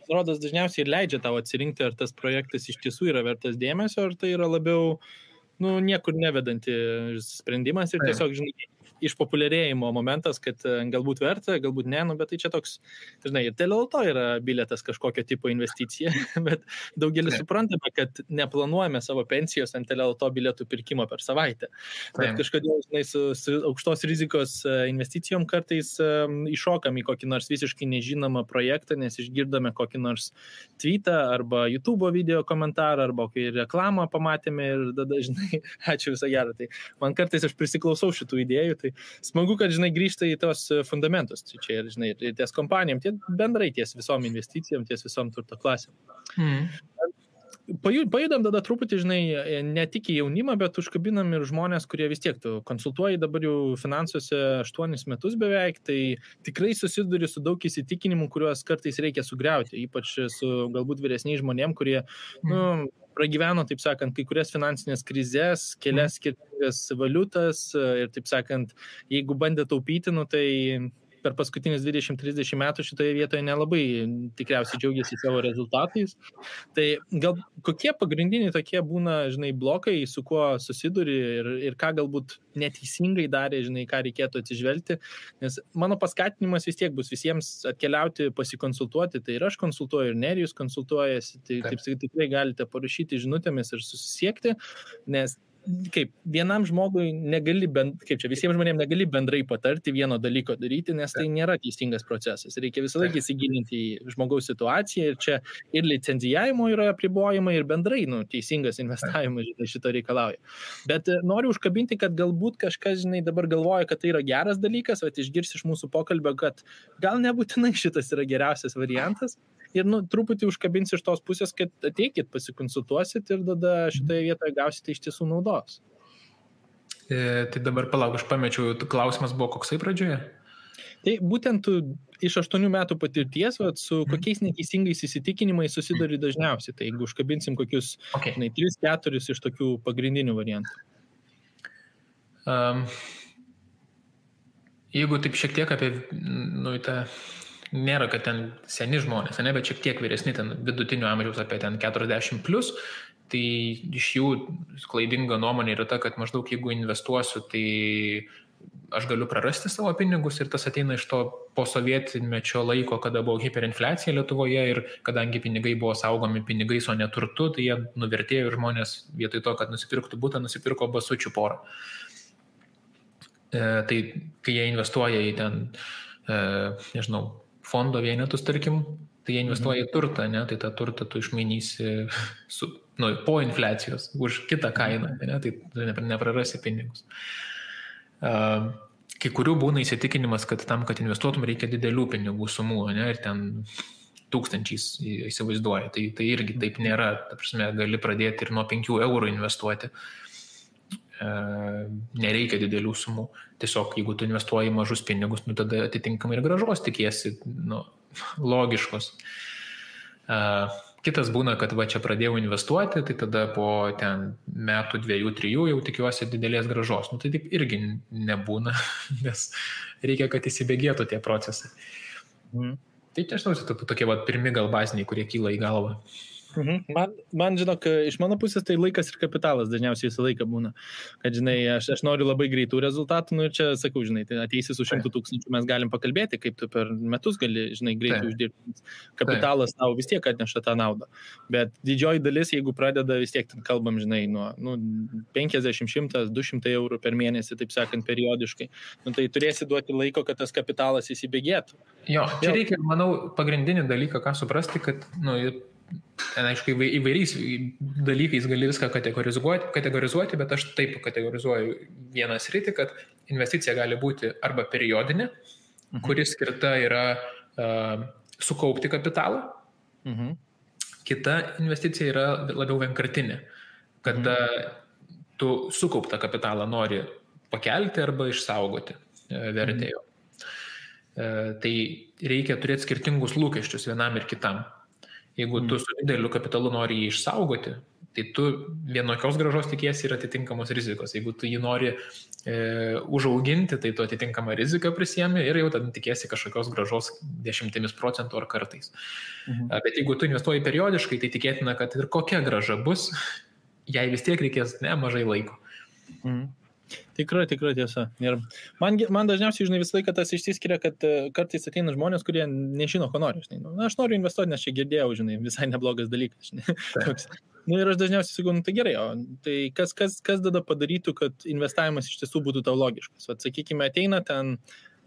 rodos dažniausiai ir leidžia tau atsirinkti, ar tas projektas iš tiesų yra vertas dėmesio, ar tai yra labiau, niekur nevedanti sprendimas ir tiesiog, žinai, išpopuliarėjimo momentas, kad galbūt verta, galbūt ne, bet tai čia toks, žinai, ir dėl to yra bilietas kažkokio tipo investicija, bet daugelis suprantame, kad neplanuojame savo pensijos ant LLT bilietų pirkimo per savaitę. Bet kažkodėl, žinai, su aukštos rizikos investicijom kartais iššokam į kokį nors visiškai nežinomą projektą, nes išgirdome kokį nors tweetą arba YouTube video komentarą, arba kokį reklamą pamatėme ir tada, žinai, ačiū visą gerą. Tai man kartais aš prisiklausau šitų idėjų, tai smagu, kad, žinai, grįžta į tos fundamentus. Čia ir, žinai, ir ties kompanijom, bendrai ties visom investicijom, ties visom turto klasėm. Pajudam tada truputį, žinai, ne tik į jaunimą, bet užkabinam ir žmonės, kurie vis tiek tu konsultuoji dabar jau finansuose 8 metus beveik, tai tikrai susiduri su daug įsitikinimų, kuriuos kartais reikia sugriauti, ypač su galbūt vyresniais žmonėm, kurie, pragyveno, taip sakant, kai kurias finansinės krizės, kelias skirtingas valiutas ir, taip sakant, jeigu bandė taupyti, tai per paskutinius 20-30 metų šitoje vietoje nelabai tikriausiai džiaugiasi savo rezultatais. Tai gal kokie pagrindiniai tokie būna, žinai, blokai, su kuo susiduri ir ką galbūt neteisingai darė, žinai, ką reikėtų atsižvelgti, nes mano paskatinimas vis tiek bus visiems atkeliauti, pasikonsultuoti, tai ir aš konsultuoju, ir Nerijus konsultuojasi, tai taip tikrai galite parašyti žinutėmis ir susisiekti, nes kaip vienam žmogui visiems žmonėms negali bendrai patarti vieno dalyko daryti, nes tai nėra teisingas procesas. Reikia visą laiką įsigilinti į žmogaus situaciją ir čia ir licenzijavimo yra apribojimai ir bendrai teisingas investavimas šito reikalauja. Bet noriu užkabinti, kad galbūt kažkas, žinai, dabar galvoja, kad tai yra geras dalykas, bet išgirsi iš mūsų pokalbio, kad gal nebūtinai šitas yra geriausias variantas. Ir truputį užkabins iš tos pusės, kad ateikit, pasikonsultuosit ir tada šitoje vietoje gausite iš tiesų naudos. Tai dabar palauk, aš pamečiau, klausimas buvo koksai pradžioje? Tai būtent iš 8 metų patirties, su kokiais neteisingais įsitikinimais susiduri dažniausiai. Tai jeigu užkabinsim kokius 3-4 iš tokių pagrindinių variantų. Jeigu taip šiek tiek apie, nėra, kad ten seni žmonės, ne, bet šiek tiek vyresni, ten vidutinio amžiaus apie ten 40+, tai iš jų klaidinga nuomonė yra ta, kad maždaug jeigu investuosiu, tai aš galiu prarasti savo pinigus ir tas ateina iš to posovietinmečio laiko, kada buvo hiperinfliacija Lietuvoje ir kadangi pinigai buvo saugomi pinigais, o ne turtu, tai jie nuvertėjo ir žmonės vietoj to, kad nusipirktų butą, nusipirko basučių porą. Tai kai jie investuoja į ten, fondo vienetus, tarkim, tai jie investuoja į turtą, ne? Tai tą turtą tu išmainysi po infliacijos už kitą kainą, ne? Tai tu neprarasi pinigus. Kai kurių būna įsitikinimas, kad tam, kad investuotum, reikia didelių pinigų sumų, ne? Ir ten tūkstančiais įsivaizduoja. Tai irgi taip nėra. Ta prasme, gali pradėti ir nuo 5 eurų investuoti. Nereikia didelių sumų. Tiesiog, jeigu tu investuoji mažus pinigus, tada atitinkamai ir grąžos tikiesi, logiškos. Kitas būna, kad čia pradėjau investuoti, tai tada po ten metų 2-3 jau tikiuosi didelės grąžos. Tai taip irgi nebūna, nes reikia, kad įsibėgėtų tie procesai. Tai nežinau, tokie pirmi gal baziniai, kurie kyla į galvą. Man, žinok, iš mano pusės tai laikas ir kapitalas dažniausiai visą laiką būna. Kad, aš noriu labai greitų rezultatų, ir čia, sakau, tai ateisi su 100 000, mes galim pakalbėti, kaip tu per metus gali, greitai uždirbti. Kapitalas tau vis tiek atneša tą naudą. Bet didžioji dalis, jeigu pradeda vis tiek, kalbam, nuo 50, 100, 200 eurų per mėnesį, taip sakant, periodiškai, tai turėsi duoti laiko, kad tas kapitalas įsibėgėtų. Jo, čia reikia, manau, pagrindinį dalyką, ką suprasti, kad, aišku, įvairiais dalykais gali viską kategorizuoti, bet aš taip kategorizuoju vieną sritį, kad investicija gali būti arba periodinė, kuris skirta yra sukaupti kapitalą. Kita investicija yra labiau vienkartinė, kada tu sukauptą kapitalą nori pakelti arba išsaugoti vertėjo. Tai reikia turėti skirtingus lūkesčius vienam ir kitam. Jeigu tu su dideliu kapitalu nori jį išsaugoti, tai tu vienokios grąžos tikiesi ir atitinkamos rizikos. Jeigu tu jį nori užauginti, tai tu atitinkamą riziką prisiemi ir jau tada tikiesi kažkokios grąžos 10% ar kartais. Bet jeigu tu investuoji periodiškai, tai tikėtina, kad ir kokia grąža bus, jai vis tiek reikės mažai laiko. Tikra tiesa. Ir man dažniausiai, visą laiką tas išsiskiria, kad kartais ateina žmonės, kurie nežino, ko nori. Aš noriu investuoti, nes čia girdėjau, visai neblogas dalykas. Ir aš dažniausiai sakau, tai gerai, tai kas tada padarytų, kad investavimas iš tiesų būtų tau logiškas? Sakykime, ateina ten,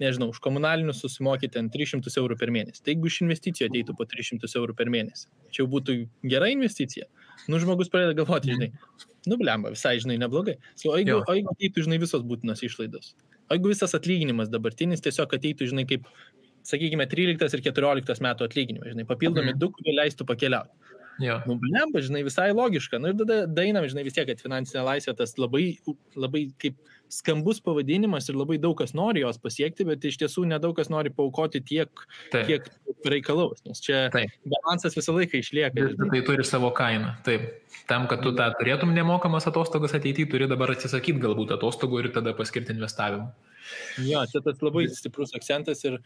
už komunalinius susimokyti 300 eurų per mėnesį. Tai jeigu iš investicijų ateitų po 300 eurų per mėnesį, čia jau būtų gera investicija? Žmogus pradeda galvoti, blemba, visai, neblogai. O jeigu ateitų, visos būtinos išlaidos? O jeigu visas atlyginimas dabartinis tiesiog ateitų, kaip, sakykime, 13 ir 14 metų atlyginimai, papildomi 2, kurie leistų pakeliauti. Blemba, visai logiška. Ir tada dainam, vis tiek, kad finansinė laisvė tas labai, labai kaip skambus pavadinimas ir labai daug kas nori jos pasiekti, bet iš tiesų nedaug kas nori paaukoti tiek, kiek reikalaus. Nes čia balansas visą laiką išlieka. Tai turi savo kainą. Taip. Tam, kad tu tą turėtum nemokamas atostogas ateityje, turi dabar atsisakyti galbūt atostogų ir tada paskirti investavimą. Jo, čia tas labai stiprus akcentas ir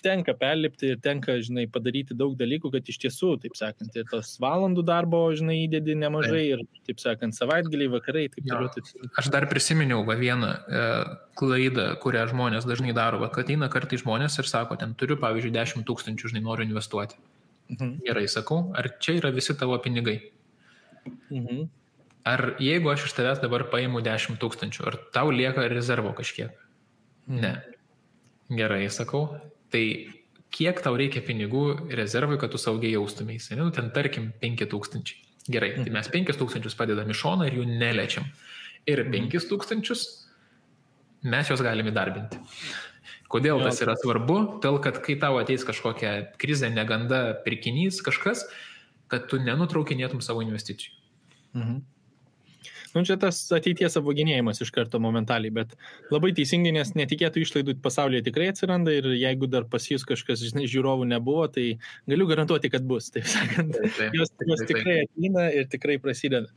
tenka perlipti ir tenka, padaryti daug dalykų, kad iš tiesų, taip sakant, ir tos valandų darbo, įdedi nemažai ir, taip sakant, savaitgaliai, vakarai, taip toliau. Aš dar prisiminiau vieną klaidą, kurią žmonės dažnai daro, kad ateina kartai žmonės ir sako, ten turiu, pavyzdžiui, 10 000, noriu investuoti. Gerai, sakau, ar čia yra visi tavo pinigai? Ar jeigu aš iš tavęs dabar paimu 10 000, ar tau lieka rezervo kažkiek? Ne. Gerai, sakau. Tai kiek tau reikia pinigų rezervui, kad tu saugiai jaustumėsi? Ten tarkim 5 000. Gerai, tai mes 5 000 padedam į šoną ir jų neliečiam. Ir 5 000 mes juos galime įdarbinti. Kodėl tas yra svarbu? Todėl, kad kai tau ateis kažkokia krizė, neganda, pirkinys, kažkas, kad tu nenutraukinėtum savo investicijų. Nu, čia tas ateities apvaginėjimas iš karto momentaliai, bet labai teisingai, nes netikėtų išlaidų pasaulyje tikrai atsiranda ir jeigu dar pas jūs kažkas, žinai, žiūrovų nebuvo, tai galiu garantuoti, kad bus, taip sakant. Jos tikrai ateina ir tikrai prasideda.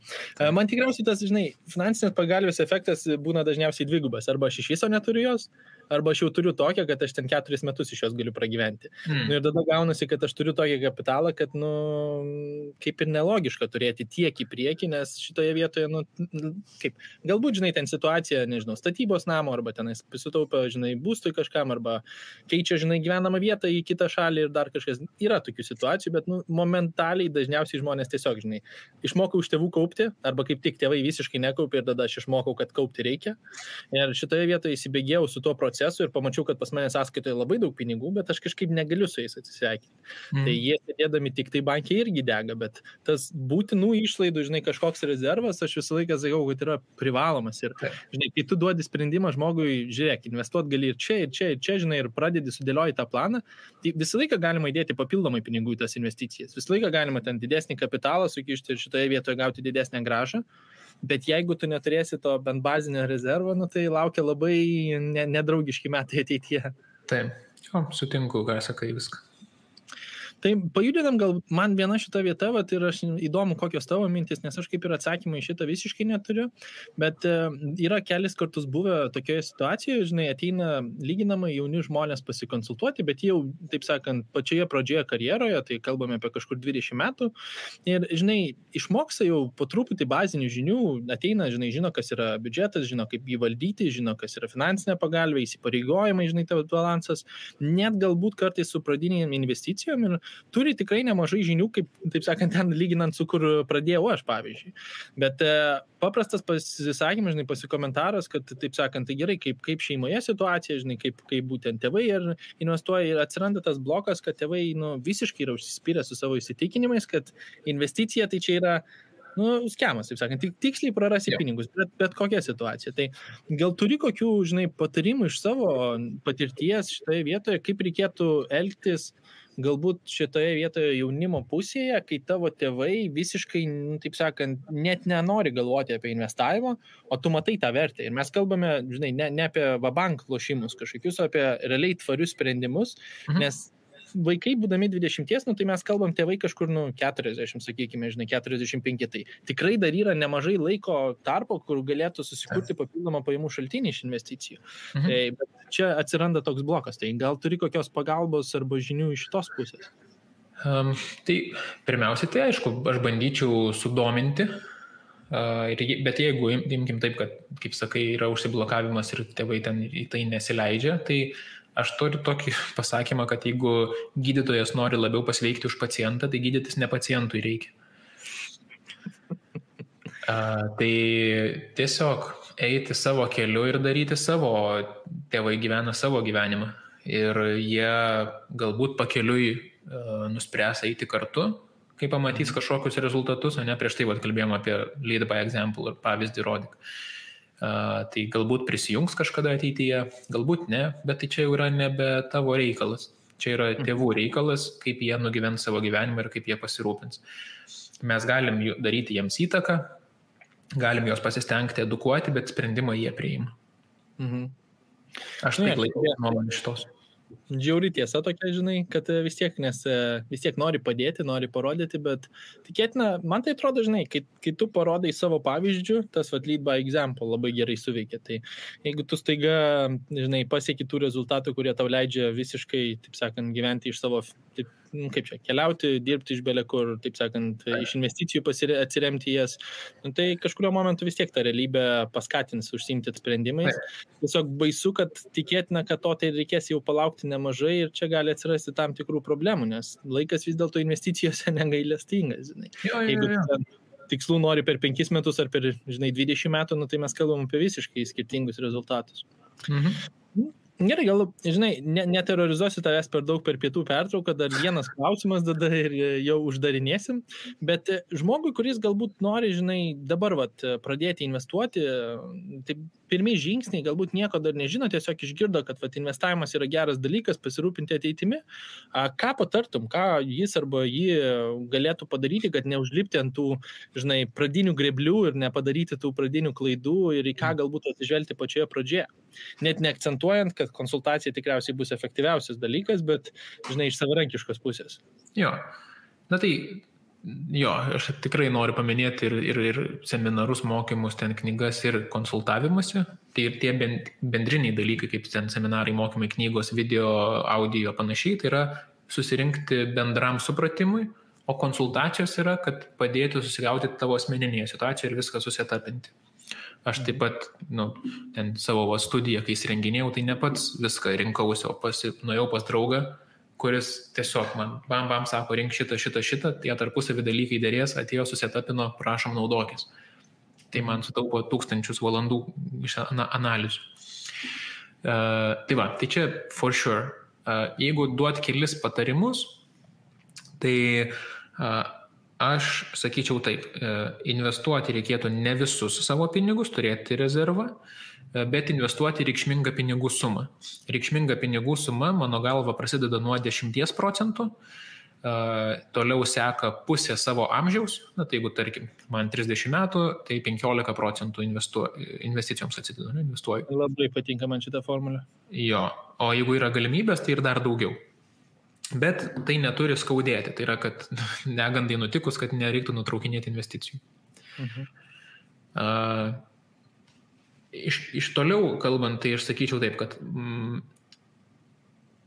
Man tikriausiai tas, žinai, finansinės pagalbės efektas būna dažniausiai dvigubas. Arba aš iš viso neturiu jos, arba aš jau turiu tokią, kad aš ten 4 metus iš jos galiu pragyventi. Nu, ir tada gaunasi, kad aš turiu tokį kapitalą, kad, nu, kaip ir nelogiška turėti tiek į priekį, nes šitoje vietoje, nu, kaip, galbūt, žinai, ten situacija, nežinau, statybos namo, arba tenais pasitaupia, žinai, būstui kažkam, arba keičia, žinai, gyvenamą vietą į kitą šalį ir dar kažkas. Yra tokių situacijų, bet, nu, momentaliai dažniausiai žmonės tiesiog, žinai, išmokau iš tėvų kaupti, arba kaip tik tėvai visiškai nekaupė ir tada aš išmokau, kad kaupti reikia. Ir šitoje vietoje įsibėgėjau su tuo procesu ir pamačiau, kad pas mane sąskaitoje labai daug pinigų, bet aš kažkaip negaliu su jais atsisveikinti. Tai jie sėdėdami tik tai bankiai irgi dega, bet tas būtinų išlaidų, žinai, kažkoks rezervas, aš visą laiką sakau, kad yra privalomas. Ir, žinai, kai tu duodi sprendimą žmogui, žiūrėk, investuot gali ir čia, žinai, ir pradedi sudėlioti tą planą, tai visą laiką galima įdėti papildomai pinigų į tas investicijas. Visą laiką galima ten didesnį kapitalą sukišti ir šitoje vietoje gauti didesnę grąžą. Bet jeigu tu neturėsi to bent bazinio rezervo, nu, tai laukia labai nedraugiški metai ateityje. Taip, sutinku, ką sakai viską. Tai pajudinam gal man viena šita vieta, vat, ir aš įdomu, kokios tavo mintis, nes aš kaip ir atsakymą į šitą visiškai neturiu, bet yra kelis kartus buvę tokioje situacijoje, žinai, ateina lyginamai jauni žmonės pasikonsultuoti, bet jau, taip sakant, pačioje pradžioje karjeroje, tai kalbame apie kažkur 20 metų, ir, žinai, išmoksta jau po truputį bazinių žinių, ateina, žinai, žino, kas yra biudžetas, žino, kaip jį valdyti, žino, kas yra finansinė pagalbė, įsipareigojimai, žinai, tavo balansas, net galbūt kartais su pradinėm investicijom ir turi tikrai nemažai žinių, kaip, taip sakant, ten lyginant su kur pradėjau aš, pavyzdžiui. Bet paprastas pasisakymas, žinai, pasikomentaras, kad, taip sakant, tai gerai, kaip šeimoje situacija, žinai, kaip būtent tėvai ir investuoja ir atsiranda tas blokas, kad tėvai, nu, visiškai yra užsispyrę su savo įsitikinimais, kad investicija tai čia yra, nu, skemas, taip sakant, tiksliai prarasi pinigus, bet kokia situacija. Tai gal turi kokių, žinai, patarimų iš savo patirties šitoje vietoje, kaip reikėtų elgtis galbūt šitoje vietoje jaunimo pusėje, kai tavo tėvai visiškai, taip sakant, net nenori galvoti apie investavimą, o tu matai tą vertę. Ir mes kalbame, žinai, ne apie vabank lošimus kažkokius, o apie realiai tvarius sprendimus, nes vaikai, būdami 20, nu, tai mes kalbam tėvai kažkur, nu, 40, sakykime, žinai, 45. Tai tikrai dar yra nemažai laiko tarpo, kur galėtų susikurti papildomą pajamų šaltinį iš investicijų. Tai, bet čia atsiranda toks blokas. Tai gal turi kokios pagalbos arba žinių iš šitos pusės? Tai pirmiausiai, tai aišku, aš bandyčiau sudominti, bet jeigu imkim taip, kad, kaip sakai, yra užsiblokavimas ir tėvai ten į tai nesileidžia, tai aš turiu tokį pasakymą, kad jeigu gydytojas nori labiau pasveikti už pacientą, tai gydytis ne pacientui reikia. Tai tiesiog eiti savo keliu ir daryti savo, tėvai gyvena savo gyvenimą. Ir jie galbūt pakeliui nuspręs eiti kartu, kai pamatys kažkokius rezultatus, o ne prieš tai kalbėjom apie lead by example ir pavyzdį rodyk. Tai galbūt prisijungs kažkada ateityje, galbūt ne, bet tai čia jau yra nebe tavo reikalas. Čia yra tėvų reikalas, kaip jie nugyvens savo gyvenimą ir kaip jie pasirūpins. Mes galim daryti jiems įtaką, galim juos pasistengti edukuoti, bet sprendimą jie priima. Aš taip laikau nuomonę šitos. Džiauri tiesa tokia, žinai, kad vis tiek nori padėti, nori parodyti, bet tikėtina, man tai atrodo, žinai, kai tu parodai savo pavyzdžių, tas lead by example labai gerai suveikia. Tai jeigu tu staiga, žinai, pasieki tų rezultatų, kurie tau leidžia visiškai, taip sakant, gyventi iš savo, taip, kaip čia, keliauti, dirbti iš belekur, taip sakant, iš investicijų atsiremti jas, tai kažkurio momentu vis tiek tą realybę paskatins užsiimti sprendimais. Tiesiog baisu, kad tikėtina, kad to tai reikės jau palaukti nemažai ir čia gali atsirasti tam tikrų problemų, nes laikas vis dėlto investicijose negailestingas, žinai. Jeigu tikslų nori per 5 metus ar per, žinai, 20 metų, nu, tai mes kalbam apie visiškai skirtingus rezultatus. Gerai, gal, žinai, neterrorizuosiu tavęs per daug per pietų pertrauką, dar vienas klausimas tada ir jau uždarinėsim, bet žmogui, kuris galbūt nori, žinai, dabar pradėti investuoti, tai pirmi žingsniai, galbūt nieko dar nežino, tiesiog išgirdo, kad investavimas yra geras dalykas, pasirūpinti ateitimi. Ką patartum, ką jis arba jį galėtų padaryti, kad neužlipti ant tų, pradinių greblių ir nepadaryti tų pradinių klaidų ir į ką galbūt atsižvelgti pačioje pradžioje. Net neakcentuojant, kad konsultacija tikriausiai bus efektyviausias dalykas, bet, iš savarankiškos pusės. Jo, aš tikrai noriu paminėti ir seminarus, mokymus, ten knygas ir konsultavimąsi. Tai ir tie bendriniai dalykai, kaip ten seminarai, mokymai, knygos, video, audio, panašiai, tai yra susirinkti bendram supratimui, o konsultacijos yra, kad padėtų susigauti tavo asmeninėje situacijoje ir viską susitapinti. Aš taip pat, ten savo studiją, kai įsirenginėjau, tai ne pats viską rinkausi, o nuėjau pas draugą, kuris tiesiog man bam sako, rink šitą, tie tarpusavį dalykai dėrės, atėjo, susitapino, prašom naudokis. Tai man sutaupo 1000 valandų iš analizių. Tai čia for sure. Jeigu duot kelis patarimus, tai aš sakyčiau taip, investuoti reikėtų ne visus savo pinigus, turėti rezervą, bet investuoti reikšmingą pinigų sumą. Reikšminga pinigų suma, mano galva, prasideda nuo 10%, toliau seka pusė savo amžiaus, tai jeigu, tarkim, man 30 metų, tai 15% investicijoms investuoju. Labai patinka man šitą formulę. Jo, o jeigu yra galimybės, tai ir dar daugiau. Bet tai neturi skaudėti, tai yra, kad negandai nutikus, kad nereiktų nutraukinėti investicijų. Iš toliau kalbant, tai aš sakyčiau taip, kad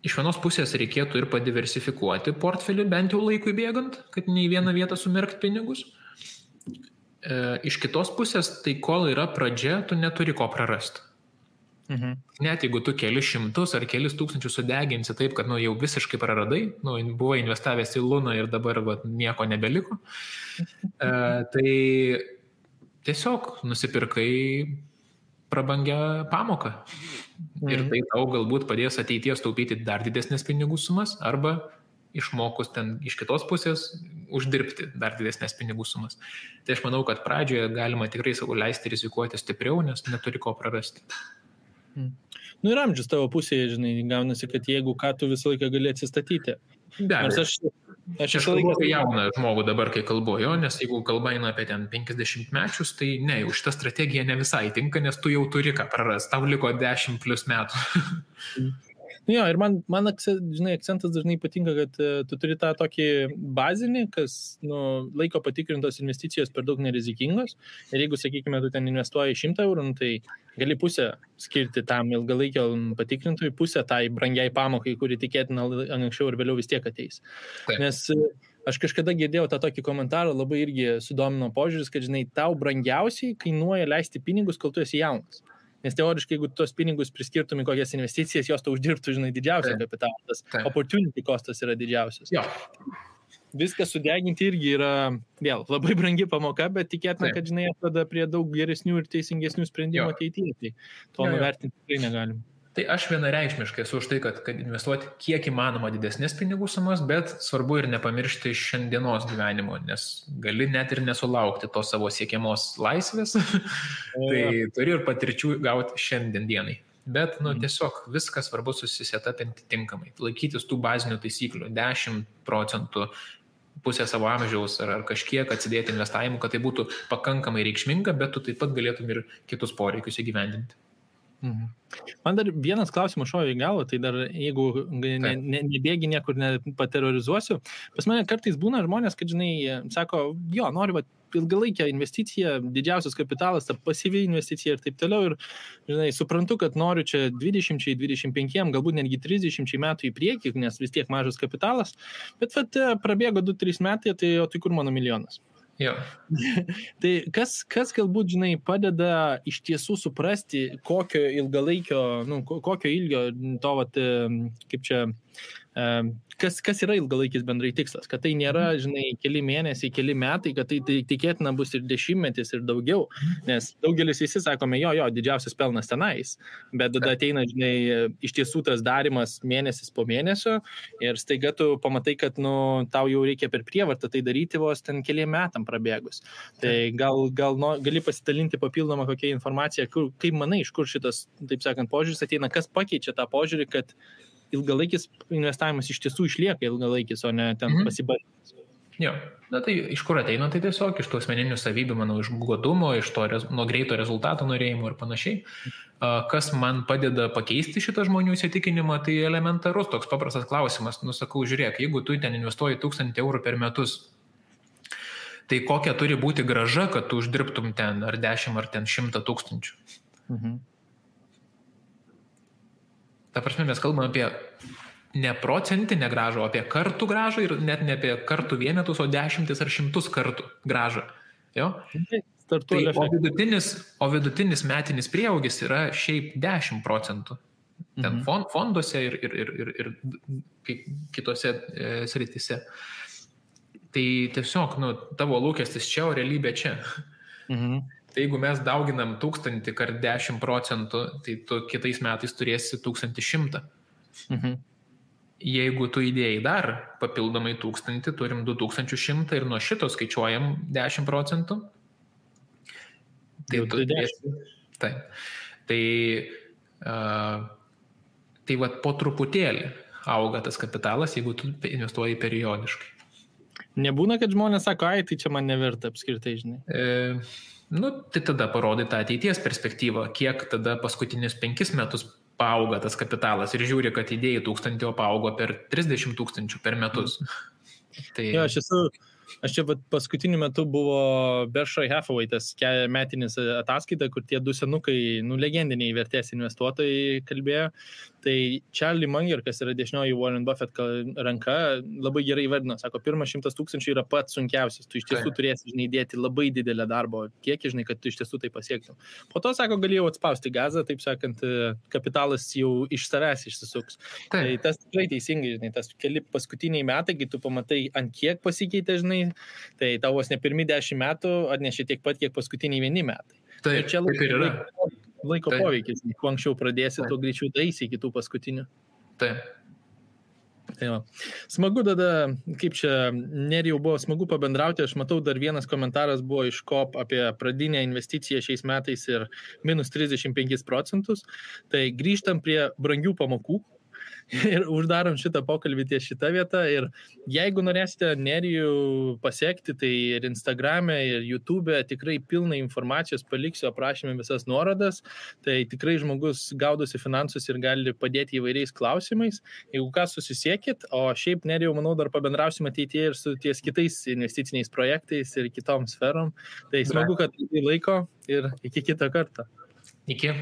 iš vienos pusės reikėtų ir padiversifikuoti portfelį, bent jau laikui bėgant, kad ne į vieną vietą sumerkt pinigus. Iš kitos pusės, tai kol yra pradžia, tu neturi ko prarasti. Net jeigu tu kelis šimtus ar kelis tūkstančius sudeginsi taip, kad jau visiškai praradai, buvai investavęs į Luną ir dabar nieko nebeliko, tai tiesiog nusipirkai prabangią pamoką. Ir tai tau galbūt padės ateities taupyti dar didesnės pinigų sumas arba išmokus ten iš kitos pusės uždirbti dar didesnės pinigų sumas. Tai aš manau, kad pradžioje galima tikrai savo leisti rizikuoti stipriau, nes neturi ko prarasti. Ir amžius tavo pusėje, gaunasi, kad jeigu ką tu visą laiką gali atsistatyti. Aš kalbu apie jauną žmogų dabar, kai kalbu, nes jeigu kalba eina apie ten 50 mečius, tai ne, jau šitą strategiją ne visai tinka, nes tu jau turi ką prarast, tau liko 10+ metų. Ir man akcentas dažnai patinka, kad tu turi tą tokį bazinį, kas laiko patikrintos investicijos per daug nerizikingos. Ir jeigu, sakykime, tu ten investuoji 100 eurų, tai gali pusę skirti tam ilgalaikio patikrintojui, pusę tai brangiai pamokai, kuri tikėtina anksčiau ir vėliau vis tiek ateis. Taip. Nes aš kažkada girdėjau tą tokį komentarą, labai irgi sudomino požiūris, kad, tau brangiausiai kainuoja leisti pinigus, kol tu esi jaunas. Nes teoriškai, jeigu tuos pinigus priskirtum į kokias investicijas, jos tau uždirbtų, didžiausią kapitalą. Opportunity costas yra didžiausias. Jo. Viską sudeginti irgi yra, vėl, labai brangi pamoka, bet tikėtina, kad, atveda prie daug geresnių ir teisingesnių sprendimų ateityje. Tai to nuvertinti tikrai negalim. Tai aš vienareikšmiškai esu už tai, kad investuoti kiek įmanoma didesnės pinigų sumas, bet svarbu ir nepamiršti šiandienos gyvenimo, nes gali net ir nesulaukti tos savo siekiamos laisvės, tai turi ir patirčių gauti šiandien dienai. Bet, tiesiog viskas svarbu susisetapinti tinkamai, laikytis tų bazinių taisyklių, 10%, pusę savo amžiaus ar kažkiek atsidėti investavimu, kad tai būtų pakankamai reikšminga, bet tu taip pat galėtum ir kitus poreikius įgyvendinti. Man dar vienas klausimas šovė į galvą, tai dar jeigu nebėgi niekur nepaterrorizuosiu, pas mane kartais būna žmonės, kad, sako, noriu ilgalaikę investiciją, didžiausias kapitalas, ta pasyvi investicija ir taip toliau, ir, suprantu, kad noriu čia 20-25, galbūt netgi 30 metų į priekį, nes vis tiek mažas kapitalas, bet prabėgo 2-3 metai, tai kur mano milijonas? Jo. Tai kas galbūt, padeda iš tiesų suprasti, kokio ilgalaikio, kokio ilgio to, kaip čia, kas yra ilgalaikis bendrai tikslas, kad tai nėra, žinai, keli mėnesiai, keli metai, kad tai tikėtina bus ir 10 ir daugiau, nes daugelis visi sakome, jo, didžiausias pelnas tenais, bet tada ateina, žinai, iš tiesų tas darimas mėnesis po mėnesio ir staiga tu pamatai, kad, tau jau reikia per prievartą tai daryti vos ten keliem metam prabėgus. Tai gali pasidalinti papildomą kokią informaciją, kaip manai, iš kur šitas, taip sakant, požiūris ateina, kas pakeičia tą požiūrį, kad ilgalaikis investavimas iš tiesų išlieka ilgalaikis, o ne ten pasibandymas. Jo, tai iš kur ateina, tai tiesiog iš tų asmeninių savybių, manau, iš godumo, iš to nuo greito rezultato norėjimo ir panašiai. Kas man padeda pakeisti šitą žmonių įsitikinimą, tai elementarus toks paprastas klausimas. Sakau, žiūrėk, jeigu tu ten investuoji 1000 eurų per metus, tai kokia turi būti grąža, kad tu uždirbtum ten ar 10 ar ten 100 000. Ta prasme, mes kalbame apie ne procentinę grąžą, o apie kartų grąžą ir net ne apie kartų vienetus, o 10 ar 100 kartų grąžą. Jo? Tai, o vidutinis metinis prieaugis yra šiaip 10%. Ten fonduose ir kitose srityse. Tai tiesiog, tavo lūkestis čia, o realybė čia. Tai jeigu mes dauginam 1000 kart 10%, tai tu kitais metais turėsi 1100. Jeigu tu įdėjai dar papildomai 1000, turim 2100 ir nuo šito skaičiuojam 10%. Tai tu turėsi. Tai vat po truputėlį auga tas kapitalas, jeigu tu investuoji periodiškai. Nebūna, kad žmonės sako, tai čia man neverta apskritai, žinai. Tai tada parodai tą ateities perspektyvą, kiek tada paskutinius 5 metus paauga tas kapitalas ir žiūri, kad idėjai 1000 paaugo per 30 000 per metus. Tai... Jo, aš čia paskutiniu metu buvo Berkshire Hathaway tas metinis ataskaita, kur tie 2 senukai, legendiniai vertės investuotojai kalbėjo. Tai Charlie Munger, kas yra dešinioji Warren Buffett ranka, labai gerai įvardino. Sako, pirmas 100 000 yra pats sunkiausias. Tu iš tiesų turėsi, žinai, dėti labai didelę darbo kiekį, žinai, kad tu iš tiesų tai pasiektum. Po to, sako, galėjau atspausti gazą, taip sakant, kapitalas jau iš savęs išsisuks. Tai tas tikrai teisingai, žinai, tas keli paskutiniai metai, kai tu pamatai, ant kiek pasikeitė, žinai, tai tavos ne pirmi 10 metų atnešė tiek pat, kiek paskutiniai 1 metai. Tai čia laiko poveikis. Kuo anksčiau pradėsi, tuo greičiau daisi iki tų paskutinių. Taip. Tai va. Smagu tada, kaip čia Nerijau buvo smagu pabendrauti, aš matau dar vienas komentaras buvo iš KOP apie pradinę investiciją šiais metais ir minus 35%. Tai grįžtam prie brangių pamokų ir uždarom šitą pokalbį ties šitą vietą ir jeigu norėsite Nerijų pasiekti, tai ir Instagrame, ir YouTube'e tikrai pilna informacijos, paliksiu aprašymę visas nuorodas, tai tikrai žmogus gaudosi finansus ir gali padėti įvairiais klausimais. Jeigu ką, susisiekit, o šiaip Nerijau, manau, dar pabendrausim ateityje ir su ties kitais investiciniais projektais ir kitom sferom. Tai smagu, kad laiko ir iki kito karto. Iki.